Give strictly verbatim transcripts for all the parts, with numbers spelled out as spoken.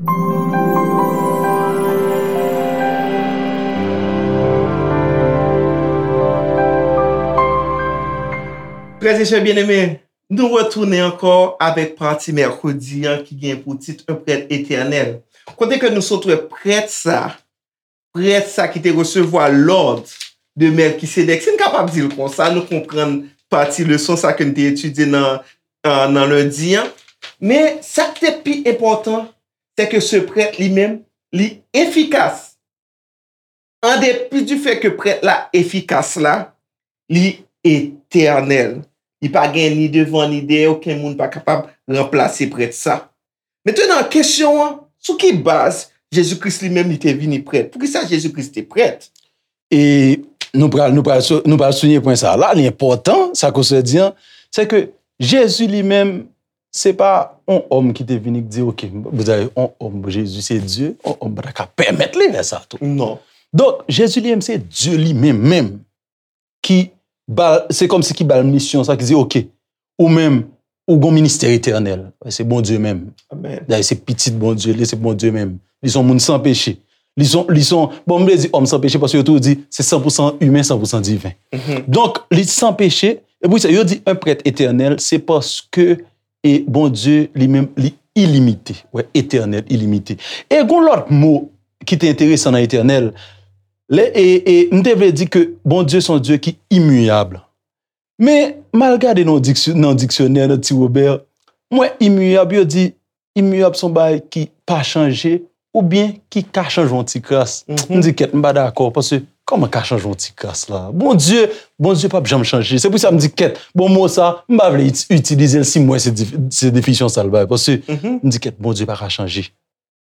Frè e sè byeneme, nou retounen ankò avèk pati mèkredi an ki gen pou tit Un prêtre éternel. Kote ke nou sot wè prèt sa, prèt sa ki te resevwa lòd de Mèlkisedèk. Si n kapab di l konsa, nou konprann pati leson sa ke n te etidye nan, nan lendi an. Men sa k te pi enpòtan, se ke se prèt li menm, li efikas. An depi du fait ke prèt la efikas la, li etènèl. Li pa gen ni devan ni dèyè, okenn moun pa kapab ranplase prèt sa. Mentenan, kesyon an, sou ki baz Jezi Kris li menm li te vini prèt? Poukisa Jezi Kris te prèt? E nou pral, nou pral, sou- nou pral souliye pwen sa a. La, li enpòtan, sa ke w sot di an, se ke Jezi li menm, se pa yon òm ki te vini ki di, oke, m bezwen yon òm, Jezi se Dye, yon òm pa ta ka pèmèt li fè sa tou. Non. Donk, Jezi li menm, se Dye li menm, menm, ki ba l, se kòmsi ki ba l misyon sa, ki di, oke, ou menm, ou gon ministè etènèl. Se Bondye menm. Amèn. Dayè, se pitit Bondye, li se Bondye menm. Li se yon moun san peche. Li se yon, li se yon, bon, m vle di òm san peche paske yo toujou di se san pou san imen, san pou san diven. Donk, li san peche. E pou sa, yo di un prêtre éternel, se paske e Bondye li menm, li ilimite. Wè, etènèl, ilimite. E gon lòt mo ki te enteresan nan etènèl, lè, e, e m te vle di ke Bondye se yon Dye ki imiyab. Men, m al gade nan diksy- nan diksyonè, nan Ti Wobè, m wè imiyab, yo di imiyab se yon bagay ki pa chanje oubyen ki ka chanje yon ti kras. M di kèt, m pa dakò, paske kòman ka chanje yon ti kras la? Bondye, Bondye p ap janm chanje. Se pou sa m di kèt, bon, mo sa, m pa vle iti- itilize l si m wè se dif- se definisyon sa l bay, paske m di kèt, Bondye pa ka chanje.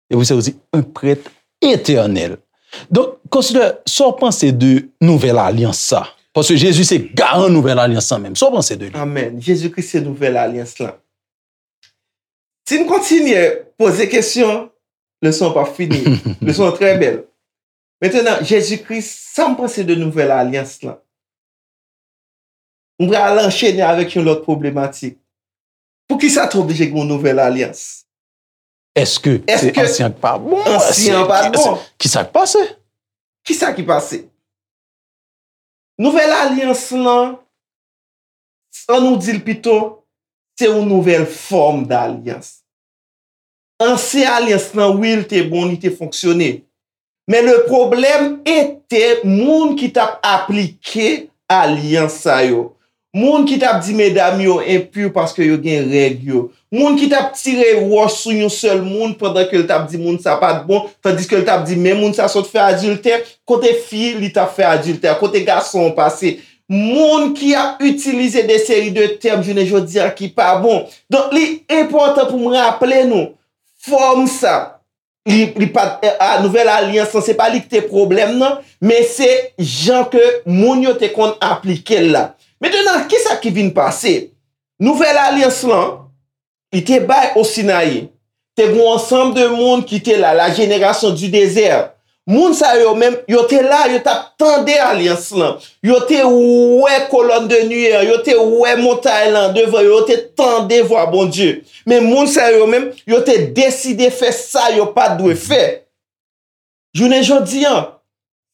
E pou sa yo di, un prêtre éternel. Donk, konsidè, sa w panse de nouvèl alyans sa? Paske Jezi se garan nouvèl alyans sa menm. Sa w panse de li? Amèn. Jezi Kris se nouvèl alyans lan. Si n kontinye poze kesyon, leson an p ap fini. Leson an trè bèl. Mentenan, Jezi Kris, sa m panse de nouvèl alyans lan? M pral anchene avèk yon lòt pwoblematik. Poukisa te oblije gen yon nouvèl alyans? Èske se ansyen an k pa bon? Ansyen an pa t bon. Kisa k pase? Kisa ki pase? Nouvèl alyans lan, ann nou di l pito, se yon nouvèl fòm dalyans. Ansyen alyans lan, wi, l te bon, li te fonksyone. Men le pwoblèm ete moun ki t ap aplike alyans sa yo. Moun ki t ap di medam yo enpi paske yo gen règ yo. Moun ki t ap tire wòch sou yon sèl moun pandan ke l t ap di moun sa pa t bon, tandiske l t ap di men moun sa sot fè adiltè, kote fi li t ap fè adiltè, kote gason an pase. Moun ki ap itilize de seri de tèm jounen jodi a ki pa bon. Donk, li enpòtan pou m raple nou, fòm sa, li, li pa t, a, nouvèl alyans lan, se pa li ki te pwoblèm nan, men se jan ke moun yo te konn aplike l la. Mentenan, kisa ki vin pase? Nouvèl alyans lan, li te bay o Sinayi, te gen yon ansanm de moun ki te la, la génération du désert. Moun sa yo menm, yo te la, yo t ap tande alyans lan. Yo te wè kolòn de niyè, yo te wè montay lan devan yo, yo te tande vwa Bondye. Men moun sa yo menm, yo te deside fè sa yo pa t dwe fè. Jounen jodi an,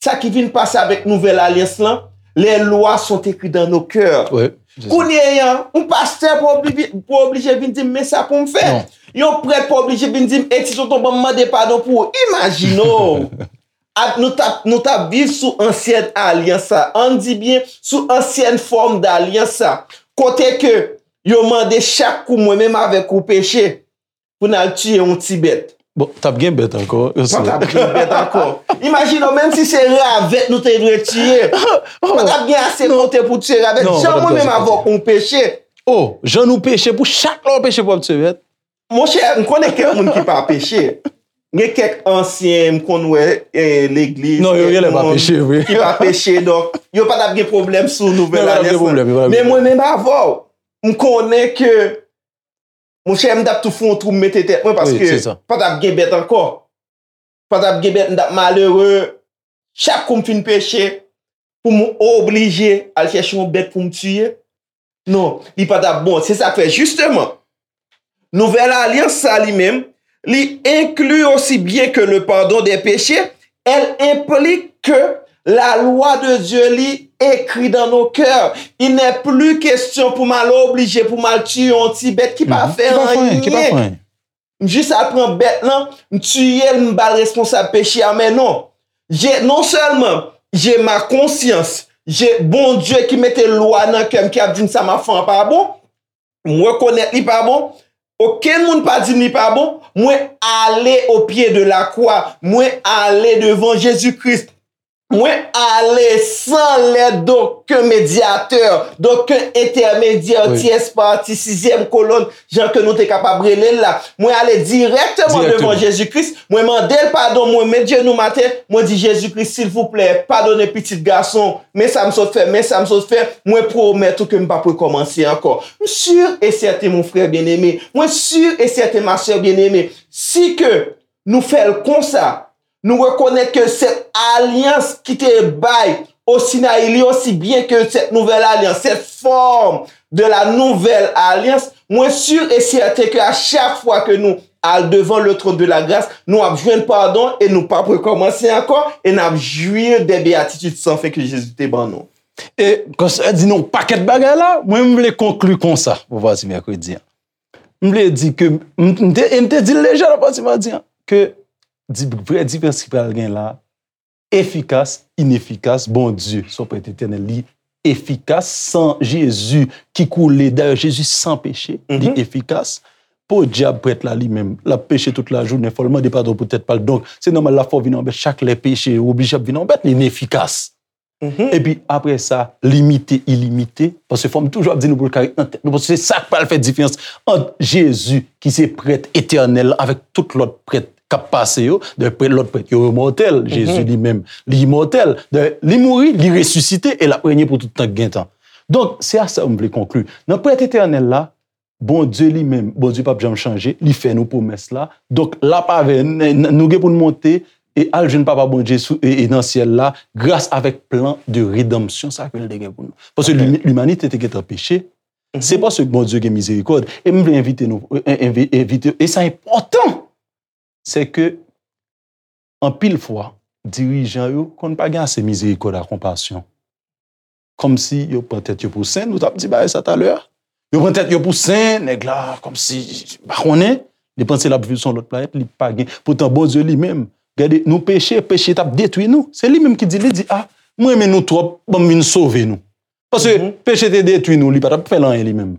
sa ki vin pase avèk nouvèl alyans lan, les lois sont écrites dans nos cœurs. Kounye a, yon pastè pa oblije vin di m men sa pou m fè. Yon prèt pa oblije vin di m, e ti tonton, ban m mande padon pou ou. Imajine w! Nou t ap, nou t ap viv sou ansyèn alyans sa. Ann di byen, sou ansyèn fòm dalyans sa. Kote ke yo mande chak kou mwen menm avèk ou peche pou n al tiye yon ti bèt. Bon, t ap gen bèt ankò. Pa t ap gen bèt ankò. Imajine w, menm si se ravèt nou te dwe tiye, pa t ap gen ase kote pou tiye ravèt. Jan mwen menm avè w peche. Oh, jan nou peche, pou chak lè w peche pou w ap tiye bèt. Monchè, m konnen kèk moun ki pa peche. Gen kèk ansyen, m konn wè legliz, kèk moun ki pa peche, donk yo pa t ap gen pwoblèm sou nouvèl ane sa. Men mwen menm avè w, m konnen ke, monchè, m t ap tou fè yon twou m mete tèt mwen paske pa t ap gen bèt ankò. Pa t ap gen bèt, m t ap malere. Chak kou m fin peche, pou m oblije al chèche yon bèt pou m tiye. Non, li pa t ap bon. Se sa k fè, jisteman, nouvèl alyans sa li menm, li inclut aussi bien que le pardon des péchés, elle implique que la loi de Dieu li écrit dans nos cœurs. Il n'est plus question pou m al oblije, pou m al tiye yon ti bèt ki pa fè anyen. Ki pa fè anyen. M jis al pran bèt lan, m tiye l, m ba l responsab peche a, men non. Je, non sèlman, je ma conscience, je, Bondye ki mete lwa nan kè m, ki ap di m sa m ap fè an pa bon, m rekonèt li pa bon, okenn moun pa di m li pa bon, mwen ale o pye de la kwa, mwen ale devan Jezi Kris. Mwen ale sans l'aide d'aucun médiateur, d'aucun intermédiaire, tierce partie, sizyèm kolòn, jan ke nou te kapab rele l la. Mwen ale dirèkteman devan Jezi Kris, mwen mande l padon, mwen met jenou m atè, mwen di, Jezi Kris, silvouplè, padone pitit gason, men sa m sot fè, men sa m sot fè, mwen pwomèt ou ke m p ap rekòmanse ankò. M si e sèten, mon frè byeneme, mwen si e sèten, ma sè byeneme, si ke nou fè l konsa, nou rekonèt ke sèt alyans ki te bay o Sinayi, li osi byen ke sèt nouvèl alyans, cette forme de la nouvelle alliance, mwen si e sèten ke a chak fwa ke nou al devan le trône de la grâce, nou ap jwenn padon e nou p ap rekòmanse ankò e n ap jwi de béatitudes sans fin ke Jezi te ban nou. E, kòm sa di nou pakèt bagay la, mwen m vle konkli konsa pou pati mèkredi an. M vle di ke, m, m te, e m te di l deja nan pati madi an, ke di, vrè diferans ki pral gen la, efikas, inefikas, Bondye, se yon prèt etènèl, li efikas, san Jezi ki koule, dayè Jezi san peche, li efikas. Podyab prèt la li menm, l ap peche tout lajounen, fò l mande padon pou tèt pa l. Donk, se nòmal l ap fè w vin yon bèt chak lè peche, ou oblije ap vin yon bèt, li inefikas. Epi apre sa, limite, ilimite, paske fò m toujou ap di nou pou l ka ret nan tèt nou, paske se sa k pral fè diferans ant Jezi, ki se prèt etènèl la, avèk tout lòt prèt k ap pase yo. Dayè, prèt, lòt prèt yo, yo mòtèl. Jezi li menm, li imòtèl. Dayè, li mouri, li resisite, e l ap renye pou tout tan k gen tan. Donk, se a sa m vle konkli. Nan prèt etènèl la, Bondye li menm, Bondye p ap janm chanje, li fè nou pwomès la. Donk, l ap avè n, n, nou gen pou n monte e al jwenn Papa Bondye sou, e, e nan syèl la, gras avèk plan de redanmsyon sa ke l te gen pou nou. Paske limi-, limanite te gentan peche. Se paske Bondye gen mizerikòd. E m vle envite nou, e, envi-, envite, e sa enpòtan, se ke anpil fwa, dirijan yo konn pa gen ase mizerikòd ak konpasyon. Kòmsi yo pran tèt yo pou sen, nou t ap di bagay sa talè a. Yo pran tèt yo pou sen, nèg la, kòmsi, pa konnen, li panse l ap viv sou yon lòt planèt, li pa gen. Poutan Bondye li menm, gade, nou peche, peche t ap detwi nou. Se li menm ki di, li di, a, mwen renmen nou twòp, ban m vin sove nou. Paske peche te detwi nou, li pa t ap fè l anyen li menm.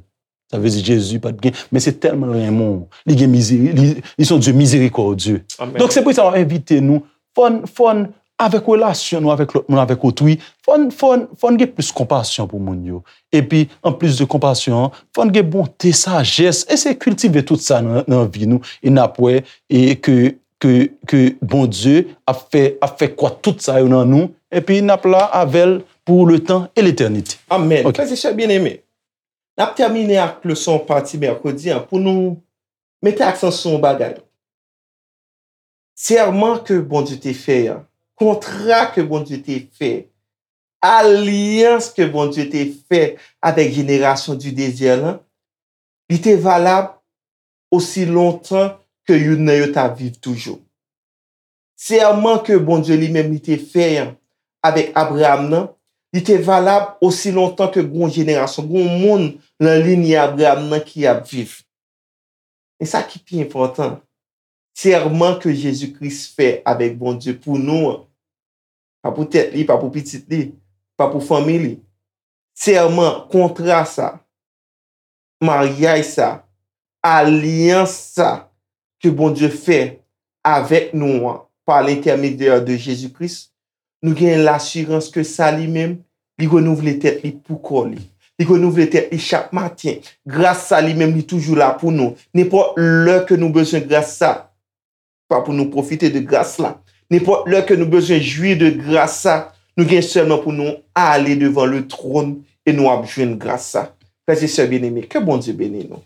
Sa vle di Jezi pa t gen, men se tèlman l renmen w, li gen mizeri-, li, li se yon Dye mizerikòdye. Donk, se pou sa m ap envite nou, fò n, fò n, avèk relasyon nou avèk lòt moun, avèk otri, fò n, fò n, fò n gen plis konpasyon pou moun yo. Epi, anplis de konpasyon an, fò n gen bonte, sajès, e se kiltive tout sa nan, nan vi nou, e n ap wè, e ke, ke, ke Bondye ap fè, ap fè kwat tout sa yo nan nou, epi n ap la avè l pou letan e letènite. Amèn. Frè e sè byeneme, n ap tèmine ak leson pati mèkredi an pou nou mete aksan sou yon bagay. Sèman ke Bondye te fè an, kontra ke Bondye te fè, alyans ke Bondye te fè avèk jenerasyon di dezè lan, li te valab osi lontan ke youn nan yo t ap viv toujou. Sèman ke Bondye li menm li te fè an avèk Abraram nan, li te valab osi lontan ke gon jenerasyon, gon moun nan linyè Abraram nan ki ap viv. E sa ki pi enpòtan, sèman ke Jezi Kris fè avèk Bondye pou nou an, pa pou tèt li, pa pou pitit li, pa pou fanmi li. Sèman, kontra sa, maryaj sa, alyans sa ke Bondye fè avèk nou an, pa lentèmedyè de Jezi Kris, nou gen lasirans ke sa li menm, li renouvle tèt li pou kò li. Li renouvle tèt li chak maten. Gras sa li menm, li toujou la pou nou. Nenpòt lè ke nou bezwen gras sa, pa pou nou pwofite de gras la. Nenpòt lè ke nou bezwen jwi de gras sa, nou gen sèlman pou nou ale devan le tròn e nou ap jwenn gras sa. Frè e sè byeneme, ke Bondye beni nou.